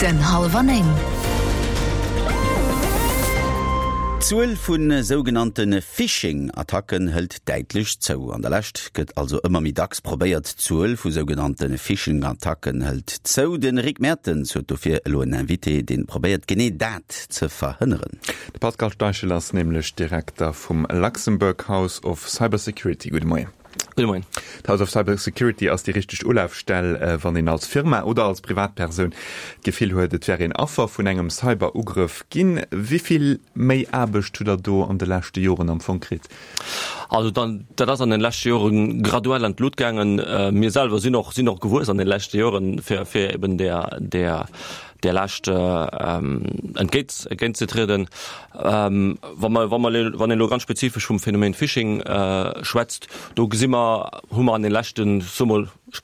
Den Hallwer 9. D'Zuel vu sougenannte Phishing-Attacken hëlt däitlech zou. An der Lescht gëtt also ëmmer méi dacks probéiert. D'Zuel vu sougenannte Phishing-Attacken hëlt zou. De Rick Mertens huet dofir elo en Invité, dee probéiert genee dat ze verhënneren. De Pascal Steichel ass nämlech Direkter vum Luxembourg House of Cybersecurity. Gudde Moien. Gudde Moien. D'House of Cybersecurity ass déi richteg Ulafstell, wann een als Firma oder als Privatpersoun d'Gefill huet, et wär een Affer vun engem Cyberugrëff ginn. Wéi vill méi Aarbecht hutt Der do an de leschte Joren am Fong kritt? Also dat ass an de leschte Jore graduell an d'Lut gaangen. Mir selwer sinn och sinn och gewuess an de leschte Joren, fir fir eben där där där Laascht entgéint entgéintzetrieden. Wa mer, wa mer, wann een elo ganz spezifesch vum Phänomen Phishing schwätzt, do gesi mer, hu mer an de leschten, ech soe mol, ech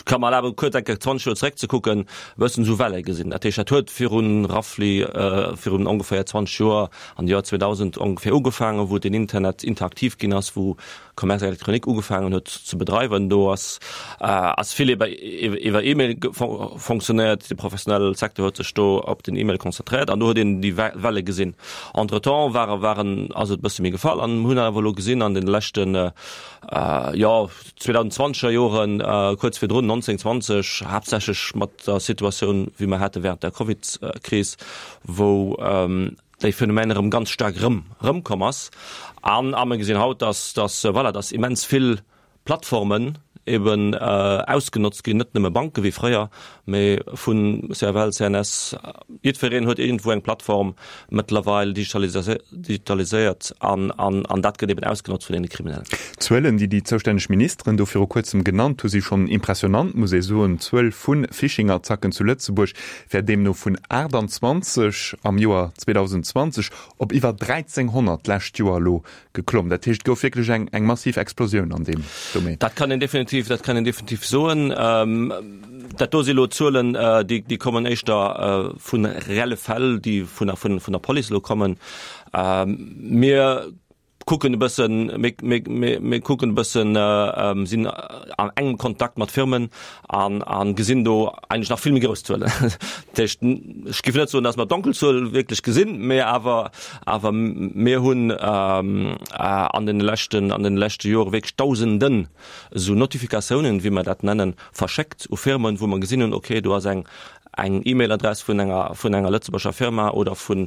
ka mer erlaben, kuerz eng Kéier 20 Joer zeréckzekucken, e bëssen esou Welle gesinn. Dat heescht, dat huet virun roughly, virun ongeféier 20 Joer, an de Joer 2000 ongeféier ugefaangen, wou den Internet interaktiv ginn ass, wou Commerce électronique ugefaangen huet ze bedreiwen. Do ass ass vill iwwer iwwer E-Mail fonctionnéiert. De professionelle Secteur huet sech do op den E-Mail konzentréiert an do huet een déi Welle gesinn. Entretemps ware waren ass et e bësse méi gefall an hunn awer elo gesinn an den leschten jo 2020er Joren, kuerz virdrun 19, 20, haaptsächlech mat der Situatioun wéi mer hate während der Covid-Kris, wou déi Phänomen erëm ganz staark erëm erëmkomm ass. An a mir gesinn haut, dass dass voilà, dass immens vill Plattformen eben ausgenotzt ginn, net nëmme Banke wéi fréier, mee vu CFL, CNS, jiddwereen huet iergendwou eng Plattform mëttlerweil digitaliséiert an an an dat gëtt eben ausgenotzt vun deene Kriminellen. D'Zuelen, déi déi zoustänneg Ministeren do viru kuerzem genannt hu si schonn impressionant, muss ee soen. D'Zuel vu Phishing-Attacken zu Lëtzebuerg wär deemno vun 28 am Joer 2020 op iwwer 1.300 d'lescht Joer elo geklomm. Dat heescht, et gouf wierklech eng eng massiv Explosioun an deem Domaine. Dat kann een definitiv, dat kann een definitiv soen. Dat do si elo Zuelen, déi déi kommen éischter vu reelle Fäll, déi vun der vun der Police elo kommen. Mir kucken e bëssen, mir kucken e bëssen, sinn an engem Kontakt mat Firmen an a gesinn do eigentlech nach vill méi grouss Zuelen. Dat heescht, ech géif net soen, datt mer d'Donkelzuel wierklech gesinn, mä awer awer mir hunn an deene leschten an deene leschte Jore wierklech Dausenden esou Notifikatiounen, wéi mer dat nennen, verschéckt u Firmen, wou mer gesinn hunn, okay, do ass eng eng E-Mail-Adress vun enger vun enger lëtzebuerger Firma oder vun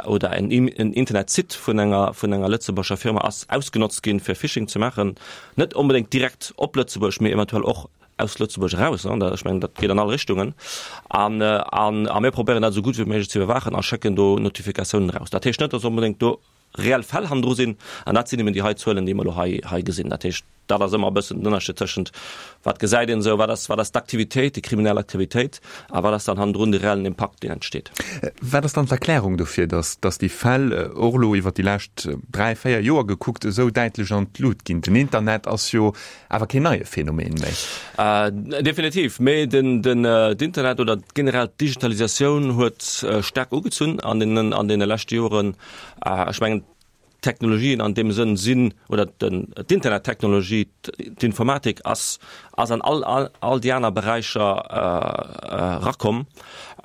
oder en en Internetsite vun enger vun enger lëtzebuerger Firma ass ausgenotzt ginn, fir Phishing ze maachen. Net onbedéngt direkt op Lëtzebuerg, mee eventuell och aus Lëtzebuerg eraus. Ech mengen, dat geet an all Richtungen. An an a mir probéieren dat esou gutt wéi méiglech ze iwwerwaachen a schécken do Notifikatiounen eraus. Dat heescht net, datt onbedéngt do reell Fäll hannendru sinn, an dat sinn eben déi hei Zuelen, déi mer elo hei, hei gesinn. Dat heescht, dat ass ëmmer e bëssen den Ënnerscheed tëschent, wat gesäit een esou, wat ass, wat ass d'Aktivitéit, déi kriminell Aktivitéit, a wat ass dann hannendrun de reellen Impakt, deen entsteet. Wat ass dann d'Erklärung dofir, datt, datt déi Fäll, och elo iwwert déi lescht dräi, véier Joer gekuckt, esou däitlech an d'Lut ginn? Den Internet ass jo awer keen neie Phänomen méi. Definitiv, mee den, den, d'Internet oder generell d'Digitalisatioun huet staark ugezunn an deenen, an deene leschte Joren. Ech mengen, d'Technologien an deem Sënn sinn, oder d'Internettechnologie, d'Informatik ass ass an all all déi aner Beräicher erakomm.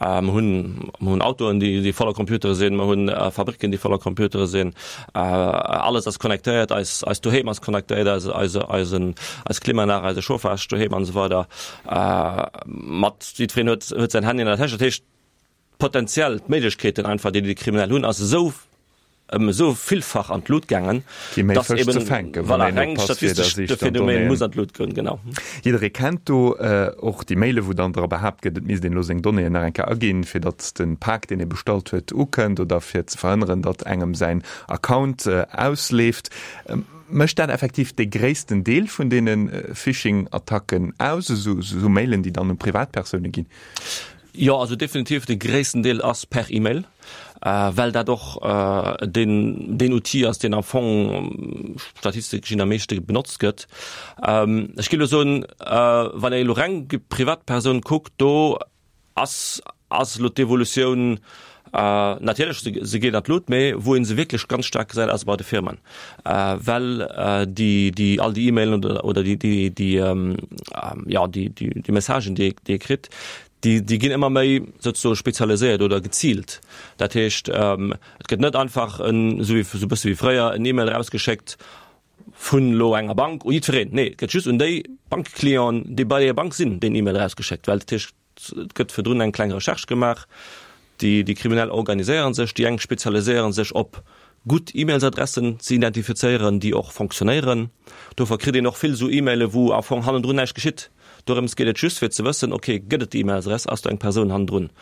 Mer hunn mer hunn Autoen, déi déi voller Computere sinn, mer hunn Fabricken, déi voller Computere sinn. Alles ass connectéiert, eis eist Doheem ass connectéiert, eise eise eisen eis Klimaanlag, eise Chauffage doheem an esou weider. Mat jiddwereen huet huet säin Handy an der Täsch. Dat heescht, Potenziell, d'Méiglechkeeten einfach, déi déi Kriminell hunn, ass esou ëm esou villfach an d'Lut gaangen, Gi méi dass Fësch eben, ze fänken, wann voilà, een reng oppasst, fir der statistesch Sich de dann Phänomen Donnéeën. muss an d'Lut goen, genau. Jidderee kennt do och déi Maile wou dann dra behaapt gëtt, et misst een elo seng Donnéeën nach eng Kéier aginn, fir datt de Pak, deen ee bestallt huet, ukënnt oder fir ze verhënneren, datt engem säin Account ausleeft. Mécht dat effektiv dee gréissten Deel vun deene Phishing-Attacken aus, esou Mailen, déi dann u Privatpersoune ginn? Jo, also definitiv de gréissten Deel ass per E-Mail, well dat och deen deen Outil ass, deen am Fong statistesch gesinn am meeschte benotzt gëtt. Ech géif elo soen, wann ee elo reng déi Privatpersoun kuckt, do ass ass elo d'Evolutioun natierlech, se se geet an d'Lut, mee wou ee se wierklech ganz staark gesäit, ass bei de Firmen, well déi déi all déi E-Mailen oder oder déi déi déi jo déi déi Messagen, déi ee déi ee kritt. Déi, déi ginn ëmmer méi souzesoe spezialiséiert oder geziilt. Dat heescht, et gëtt net einfach en, esou wéi, esou e bësse wéi fréier, en E-Mail erausgeschéckt vun elo enger Bank u jiddwereen. Nee, et gëtt just un déi Bankclienten, déi bei där Bank sinn, deen E-Mail erausgeschéckt, well dat heescht, et gëtt virdrun eng kleng Recherche gemaach. Déi, déi Kriminell organiséiere sech, déi eng spezialiséiere sech op gutt E-Mailsadressen ze identifizéieren, déi och fonctionnéieren. Dofir kritt een och vill esou E-Maile wou am Fong hannendrun näischt geschitt. Dorëms geet et just fir ze wëssen, ok, gëtt et déi E-Mailsadress, ass do eng Persoun hannendrun?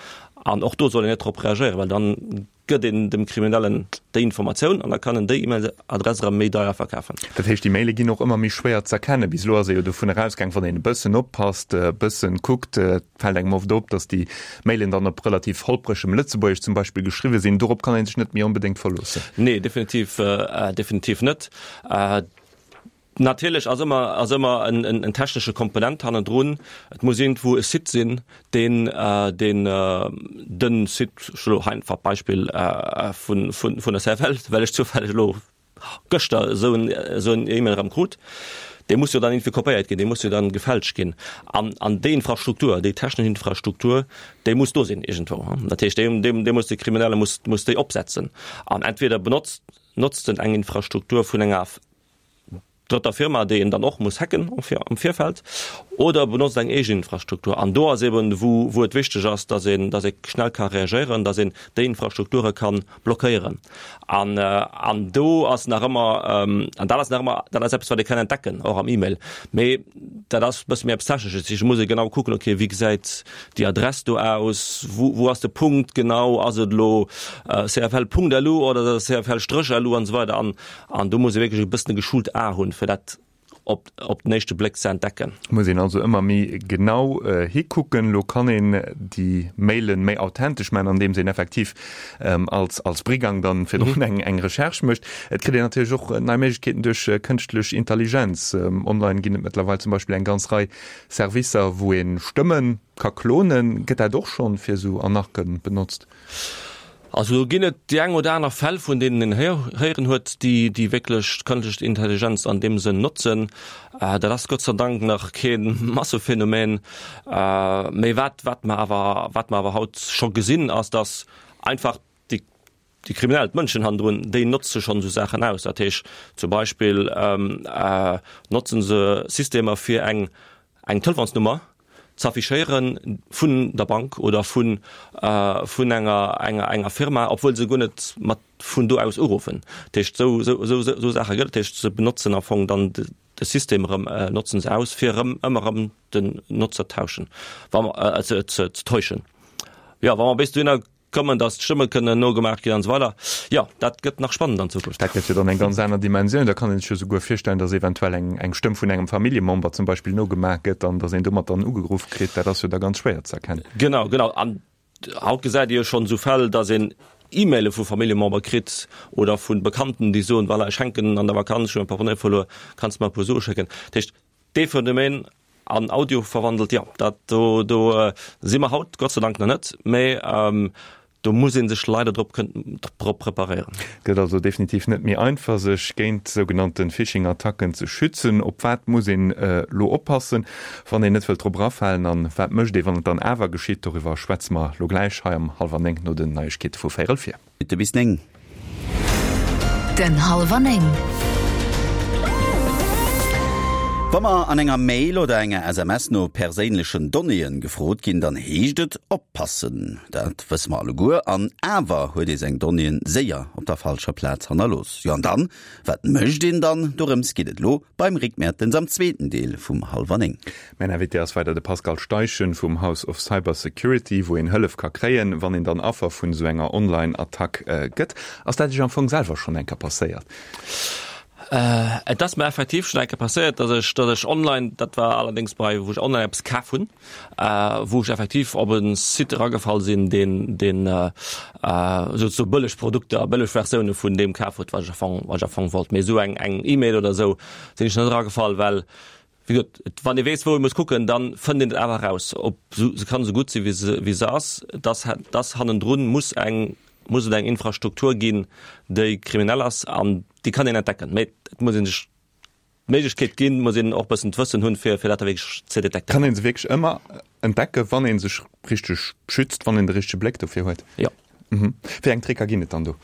An och do soll een net drop reagéieren, well dann gëtt een dem Kriminellen déi Informatioun an da kann en déi E-Mail-Adress erëm méi deier verkafen. Dat heescht, déi Maile ginn och ëmmer méi schwéier z'erkennen. Bis elo ass ee jo dovun erausgaang, wann een e bëssen oppasst, e bëssen kuckt, et fält engem oft op, datt déi Mailen dann op relativ holpregem Lëtzebuergesch zum Beispill geschriwwe sinn. Dorop kann ee sech net méi onbedéngt verloossen. Nee, definitiv, definitiv net. Natierlech ass ëmmer, ass ëmmer en, en, en technesche Komponent hannendrun. Et muss iergendwou e Site sinn, deen, deen de Site, ech elo hei einfach d'Beispill vun, vun, vun der CFL, well ech zoufälleg elo gëschter esou en, esou en E-Mail erëm krut, dee muss jo dann iergendwéi kopéiert ginn, dee muss jo dann gefälscht ginn. An, an déi Infrastruktur, déi technesch Infrastruktur, déi muss do sinn iergendwou. Dat heescht, déi, déi, déi muss de Kriminelle muss, muss déi opsetzen. An entweder benotzt, notzt en eng Infrastruktur vun enger drëtter Firma, déi een dann och muss hacken am Virfeld, oder benotzt eng eegen Infrastruktur. An do ass eben, wou, wou et wichteg ass, dass een, dass ee schnell ka reagéieren, dass een déi Infrastrukture ka blockéieren. An, an do ass nach ëmmer, an dat ass nach ëmmer, dat ass eppes, wat ee kann entdecken, och am E-Mail. Mee dat ass e bësse méi eppes Technesches. Ech muss ee genau kucken, okay, wéi gesäit déi Adress do aus, wou, wou ass de Punkt genau, ass et elo cfl.lu oder ass et cfl-lu an esou weider. An, An do muss ee wierklech e bëssen e geschult A hunn, fir dat op, op den éischte Bléck ze entdecken. Muss een also ëmmer méi genau hikucken. Lo kann een déi Mailen méi authentesch maachen, andeems een effektiv als, als Brigang dann virdrun eng, eng Recherche mécht. Et kritt een natierlech och nei Méiglechkeeten duerch kënschtlech Intelligenz. Online ginn et mëttlerweil zum Beispill eng ganz Rei Servicer, wou ee Stëmme ka klonen. Gëtt dat och schonn fir esou Arnaquë benotzt? Also do ginn et déi eng oder aner Fäll, vun deenen een héieren huet, déi déi wierklech d'kënschtlech Intelligenz an deem Sënn notzen. Dat ass Gott sei Dank nach kee Massephänomen. Mee wat wat mer awer wat mer awer haut scho gesinn, ass, datt einfach déi déi Kriminell, d'Mënschen hannendrun, déi notze schonn esou Saachen aus. Dat heescht zum Beispill notzen se Systemer fir eng eng Telefonsnummer z'affichéiere vun der Bank oder vun vun enger enger enger Firma, obwuel se guer net mat vun do aus uruffen. Dat heescht, esou esou esou esou Saache gëtt et. Dat heescht, se benotzen am Fong dann de System erëm, notzen se aus, fir erëm ëmmer erëm den Notzer tauschen, wa mer ze ze täuschen. Jo, wa mer bis dohinner Kommen, dass d'Stëmme kënnen nogemaach ginn an esou weider. Jo, dat gëtt nach spannend an Zukunft. Dat gëtt jo dann eng ganz aner Dimensioun. Da kann een sech jo souguer virstellen, dass eventuell eng eng Stëmm vun engem Familljemember zum Beispill nogemaach gëtt an dass een domat dann ugeruff kritt. Dat ass jo da ganz schwéier ze erkennen. Genau, genau. An haut gesäit ee jo schonn esou Fäll, dass een E-Maile vu Familljemember kritt oder vu Bekannten, déi soen, voilà, ech hänken an der Vakanz, ech hu mäi Portemonnaie verluer, kanns de mer e puer Sue schécken? Dat heescht, dee Phänomen An Audio verwandelt, jo, dat do, do si mer haut Gott sei Dank nach net, mä do muss ee sech leider drop drop preparéieren. Et gëtt also definitiv net méi einfach, sech géint sougenannte Phishing-Attacken ze schützen. Op wat muss een elo oppassen, wann een net wëllt drop erafalen? An wat mécht ee, wann et dann awer geschitt? Doriwwer schwätze mer elo gläich hei am Hallwer 9 no den Neiegkeete vu véierel vir. Minutte bis 9. Den Hallwer 9. Wa mer an enger Mail oder enger SMS no perséinlechen Donnéeën gefrot ginn, dann heescht et oppassen. Dat wësse mer alleguer. An awer huet ee seng Donnéeën séier op der falscher Plaz hannerlooss. Jo an dann? Wat mécht een dann? Dorëms geet et elo beim Rick Mertens am zweeten Deel vum Hallwer 9. Mäin Invité ass weider de Pascal Steichen vum House of Cyber Security, wou een Hëllef ka kréien, wann een dann Affer vun esou enger Online-Attack gëtt. Ass dat Iech am Fong selwer schonn eng Kéier passéiert? Et ass mer effektiv schonn eng Kéier passéiert, dass ech, dass ech online, dat war allerdéngs bei, wou ech online eppes kaf hunn, wou ech effektiv op e Site eragefall sinn, deen, deen esou bëlleg Produkter, bëlleg Versioune vun deem kaf huet, wat ech am Fong, wat ech am Fong wollt. Mee esou eng, eng E-Mail oder esou sinn ech net eragefall, well Wéi gesot, et, wann ee weess, wou ee muss kucken, da fënnt een et awer eraus. Ob se, se kann esou gutt sinn, wéi se, wéi se ass, dass, dass hannendrun muss eng, muss et eng Infrastruktur ginn, déi kriminell ass an déi kann een entdecken. Mä et muss ee sech. d'Méiglechkeet ginn, muss een och e bëssen d'Wëssen hunn, fir fir dat da wierklech ze detektéieren. Kann ee se wierklech ëmmer entdecken, wann ee sech richteg schützt, wann een de richtege Bléck dofir huet? Jo. Wéi eng Tricker ginn et dann do?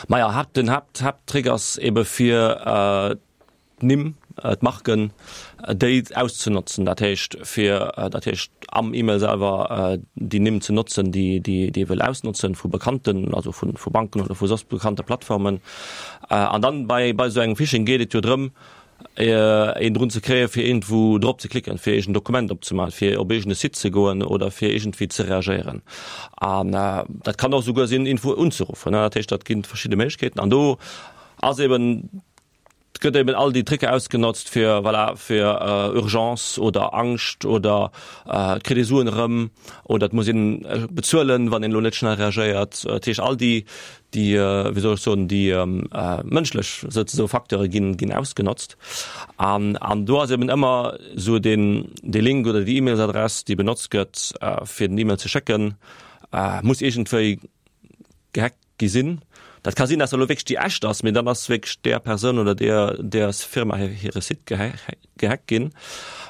Maja, Haapt, den Haapt, Haapttrick ass ebe fir d'Nimm, d'Marken, déi auszenotzen. Dat heescht fir, dat heescht am E-Mail selwer déi Nimm ze notzen, déi, déi, déi ee wëll ausnotzen vu bekannten, also vu, vu Banken oder vu soss bekannte Plattformen. An dann bei, bei esou engem Phishing geet et jo drëm, een drun ze kréien, fir iergendwou drop ze klicken, fir iergend Dokument opzemaachen, fir op iergend e Site ze goen oder fir iergendwéi ze reagéieren. An dat kann och esouguer sinn, iergendwou unzeruffen. Dat heescht, dat ginn verschidde Méiglechkeeten. An do ass eben, gëtt eben all déi Tricker ausgenotzt, fir, voilà, fir Urgence oder Angscht oder et kritt ee Suen erëm oder et muss een bezuelen, wann een elo net schnell reagéiert. Dat heescht, all déi, déi, wéi soll ech soen, déi mënschlech souzesoe Facteure ginn, ginn ausgenotzt. An, an do ass eben ëmmer esou deen, dee Link oder déi E-Mailsadress, déi benotzt gëtt, fir den E-Mail ze schécken, muss iergendwéi gehackt gi sinn. Dat ka sinn, dass dat elo wierklech déi echt ass, mee dann ass wierklech där Persoun oder där, där Firma hire Site gehackt ginn.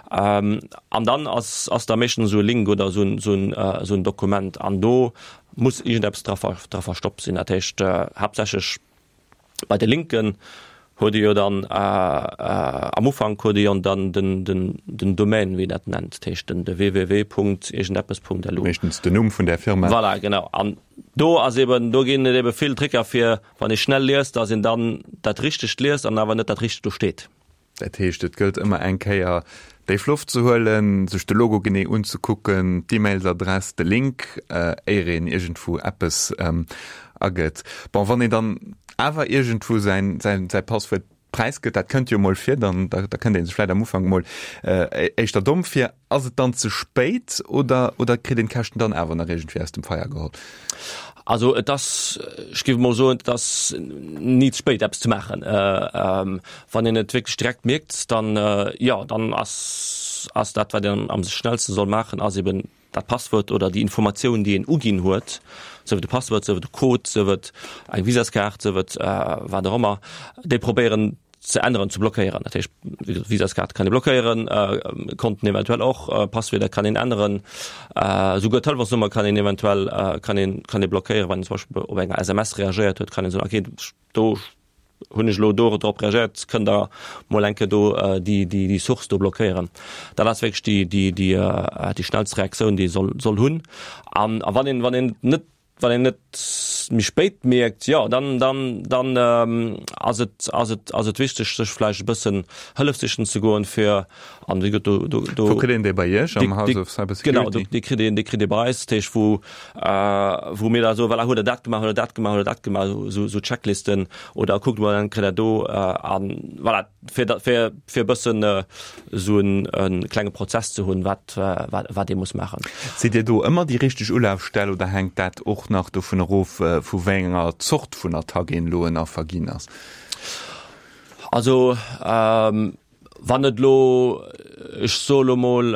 An dann ass, ass da meeschtens esou e Link oder esou en, esou en, esou en Dokument an do muss iergendeppes dra, dra verstoppt sinn. Dat heescht haaptsächlech bei de Linken huet ee jo dann am Ufank huet ee jo dann den, den, den Domaine, wéi een dat nennt, dat heescht den, de www Punkt iergendeppes Punkt lu. Meeschtens den Numm vun där Firma. Voilà, genau. An do ass eben, do ginn et ebe vill Tricker fir, wann ee schnell liest, datt een dann dat Richtegt liest an awer net dat Richtegt do steet. Dat heescht, et gëllt ëmmer eng Kéier déif Loft ze huelen, sech de Logo genee unzekucken, d'E-Mailsadress, de Link, éier een iergendwou eppes agëtt. Bon, wann een dann awer iergendwou säin, säin, säi Passwuert präisgëtt, dat kënnt jo emol vir, dann, da, da kënnt ee sech vläicht am Ufank emol éischter domm vir. Ass et dann ze spéit oder, oder kritt een d'Käschten dann awer nach iergendwéi aus dem Feier geholl? Also et ass, ech géif emol soen, et ass ni ze spéit eppes ze maachen. Wann een et wierklech direkt mierkt, dann, jo, dann ass, ass dat wat een am schnellste soll maachen, ass eben dat Passwuert oder déi Informatioun déi een uginn huet, sief et e Passwuert, sief et e Code, sief et eng Visaskaart, sief et wat och ëmmer, déi probéieren ze änneren, ze blockéieren. Dat heescht, Visaskaart kann ee blockéieren, Konten eventuell och, Passwierder kann een änneren, esouguer d'Telefonsnummer kann een eventuell kann een kann ee blockéieren, wann een zum Beispill op enger SMS reagéiert huet, kann een soen, okay, do hunn ech elo do drop reagéiert, kënnt Der mol eng Kéier do déi déi déi Source do blockéieren. Dat ass wierklech déi déi déi déi schnellst Reaktioun, déi ee soll soll hunn. An a wann een wann een net Wann een et méi spéit mierkt, jo, dann, dann, dann ass et, ass et, ass et wichteg, sech vläicht e bëssen Hëllef sichen ze goen, fir, an wéi gesot, do, do, do. Wou kritt een déi bei Iech am House of Cybersecurity? Genau, do, déi kritt een, déi kritt ee bei eis, dat heescht, wou, wou mir da soen, voilà, hutt Der dat gemaach, hutt Der dat gemaach, hutt Der dat gemaach, esou, esou Checklisten, oder kuckt mol, dann kritt Der do, an voilà. fir da, fir, fir e bëssen esou en, e klenge Prozess ze hunn, wat, wat, wat ee muss maachen. Sidd Dir do ëmmer déi richteg Ulafstell oder hänkt dat och nach dovun erof, vu wéi enger Zort vun Attack een elo en Affer ginn ass? Also, wann et elo, ech soe lo mol,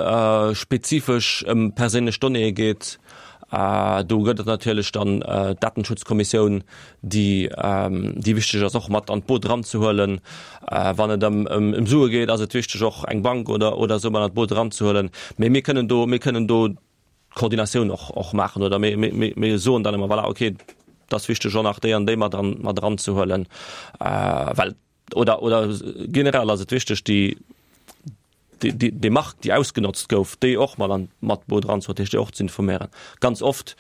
spezifesch ëm perséinlech Donnéeë geet, do gëtt et natierlech dann d'Datenschutzkommissioun, déi déi wichteg ass och mat an d'Boot eranzehuelen. Wann et ëm ëm Sue geet, ass et wichteg och eng Bank oder oder esou mat an d'Boot eranzehuelen. Mee mir kënnen do mir kënnen do d'Koordinatioun och och maachen oder mir mir mir soen dann ëmmer, voilà, okay, et ass wichteg och nach déi an déi mat an mat eranzehuelen, well oder oder generell ass et wichteg déi déi déi Mark déi ausgenotzt gouf, déi och mat an mat Boot eranzehuelen, dat heescht déi och ze informéieren. Ganz oft,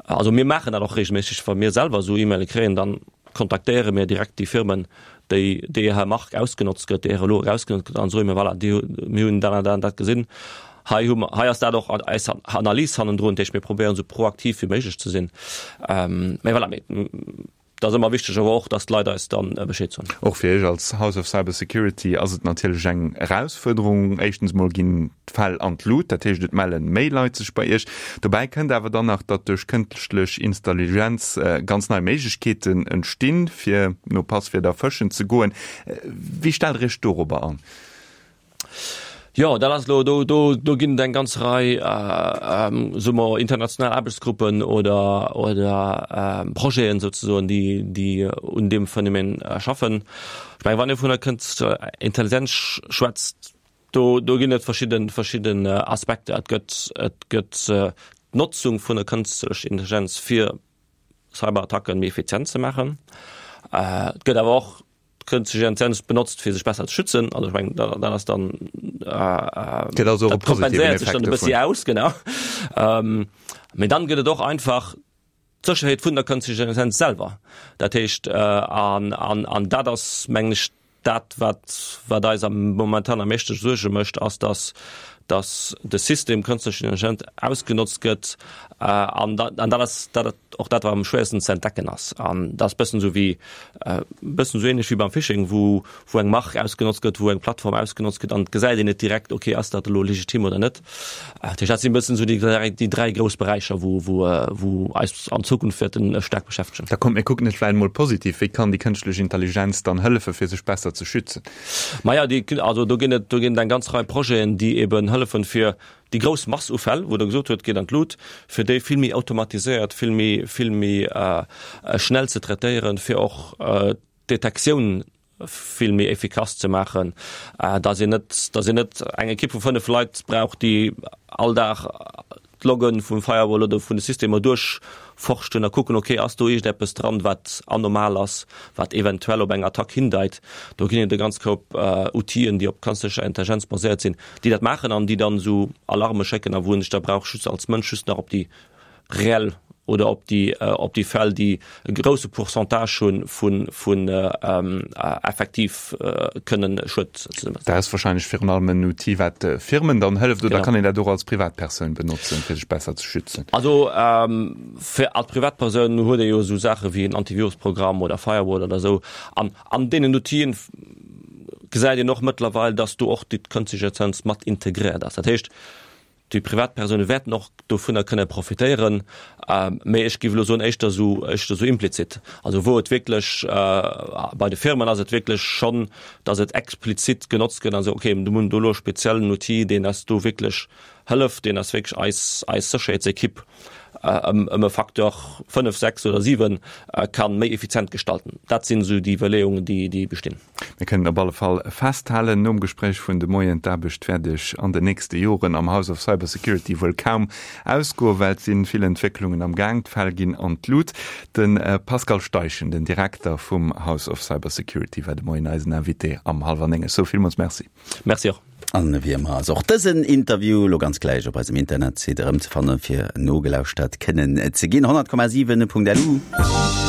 also mir maachen dat och regelméisseg, wa mir selwer esou E-Maile kréien, dann kontaktéiere mir direkt déi Firmen, déi déi hir Mark ausgenotzt gëtt, déi hire Logo ausgenotzt gëtt an soe mir, voilà, déi mir hunn dat an dat an dat gesinn, hei hu mer, hei ass dat och eis Analys hannendrun, dat heescht mir probéieren esou proaktiv wéi méiglech ze sinn. Mä voilà, mir Et ass ëmmer wichteg awer och, dass d'Leit eis dann Bescheed soen. Och fir Iech als House of Cybersecurity ass et natierlech eng Erausfuerderung. Éischtens mol ginn d'Fäll an d'Lut, dat heescht et melle méi Leit sech bei Iech. Dobäi kënnt awer dann nach, datt duerch kënschtlech Installigenz ganz nei Méiglechkeeten entstinn, fir no Passwierder fëschen ze goen. Wéi stellt Der Iech dorobber an? Jo, dat ass elo, do, do, do ginn et eng ganz Rei, soe mer, international Aarbechtsgruppen oder, oder Projeten souzesoen, déi, déi un deem Phänomen schaffen. Ech mengen, wann ee vun der kënstlecher Intelligenz schwätzt, do, do ginn et verschidden, verschidden Aspekter. Et gëtt, et gëtt d'Notzung vun der kënstlecher Intelligenz fir Cyberattacken méi effizient ze maachen. Et gëtt awer och Kënschtlech Intelligenz benotzt fir sech besser ze schützen. Also ech mengen dat ass dann Gëtt also och e positiven kompenséiert sech dann Effekt e bëssi dovun. aus, genau. Mee dann gëtt et och einfach d'Sécherheet vun der Kënschtlech Intelligenz selwer. Dat heescht an an an dat ass mengen ech dat wat wat eis am momentan am meeschte Suerge mécht, ass datt datt de System Kënschtlech Intelligenz ausgenotzt gëtt an dat an dat ass dat och dat wat am schwéiersten ze entdecken ass. An dat ass bëssen esou wéi bëssen esou ähnlech wéi beim Phishing, wou wou eng Mark ausgenotzt gëtt, wou eng Plattform ausgenotzt gëtt an et gesäit een net direkt, okay ass dat elo legitim oder net. Dat heescht dat sinn bëssen esou déi dräi déi dräi grouss Beräicher, wou wou wou eis an Zukunft wäerten staark beschäftegen. Da kommt mir kucken et vläicht emol positiv, Wéi kann déi kënschtlech Intelligenz dann hëllefe fir sech besser ze schützen? Maja déi also do ginn et do ginn et eng ganz Rei Projeten, déi eben hëllefen fir Déi grouss Mass u Fäll, wou Der gesot hutt, geet an d'Lut, fir déi vill méi automatiséiert, vill méi, vill méi schnell ze traitéieren, fir och d'Detektioun vill méi effikass ze maachen, dass een net, dass een net eng Ekipp vu 5 Leit brauch, déi all Dag d'Logge vum Firewall oder vun de Systemer duerchforschten a kucken, okay, ass do iergendeppes dran, wat anomal ass, wat eventuell op eng Attack hindeit. Do ginn et e ganz Koup Outile, déi op kënstlecher Intelligenz baséiert sinn, déi dat maachen an déi dann esou Alarme schécken a wou een sech da brauch just als Mënsch just nach op déi reell oder op déi op déi Fäll, déi e grousse Pourcentage hu vun vun effektiv kënnen Schued ze. Dat ass wahrscheinlech virun allem en Outil, wat Firmen dann hëlleft, oder kann een dat och als Privatpersoun benotzen, fir sech besser ze schützen? Also fir als Privatpersoun huet ee jo esou Saache wéi en Antivirusprogramm oder Firewall oder esou an an deenen Outile gesäit een och mëttlerweil, dass do och déi kënschtlech Intelligenz mat integréiert ass. Dat heescht, déi Privatpersoune wäerten och dovunner kënne profitéieren, mä ech géif elo soen, éischter esou, éischter esou implizit. Also wou et wierklech, bei de Firmen ass et wierklech schonn, dass et explizit genotzt gëtt an esou, okay, mir hunn do elo e speziellen Outil, deen eis do wierklech hëlleft, deen eis wierklech eis, eis Sécherheetsekipp ëm e Facteur 5, 6 oder 7 ka méi effizient gestalten. Dat sinn esou déi Iwwerleeungen, déi, déi bestinn. Mir kënnen op alle Fall festhalen, nom Gespréich vun de Moien, d'Aarbecht wäert Iech an den nächste Joren am House of Cybersecurity wuel kaum ausgoen, well et si vill Entwécklungen am Gaang, d'Fäll ginn an d'Lut. De Pascal Steichen, den Direkter vum House of Cybersecurity, war de Moien eisen Invité am Hallwer 9. Ech soe villmools Merci. Merci och. An wéi ëmmer ass och dësen Interview lo ganz gläich op eisem Internetsite erëmzefannen, fir nogelauschtert kënnen ze ginn. 100,7.lu.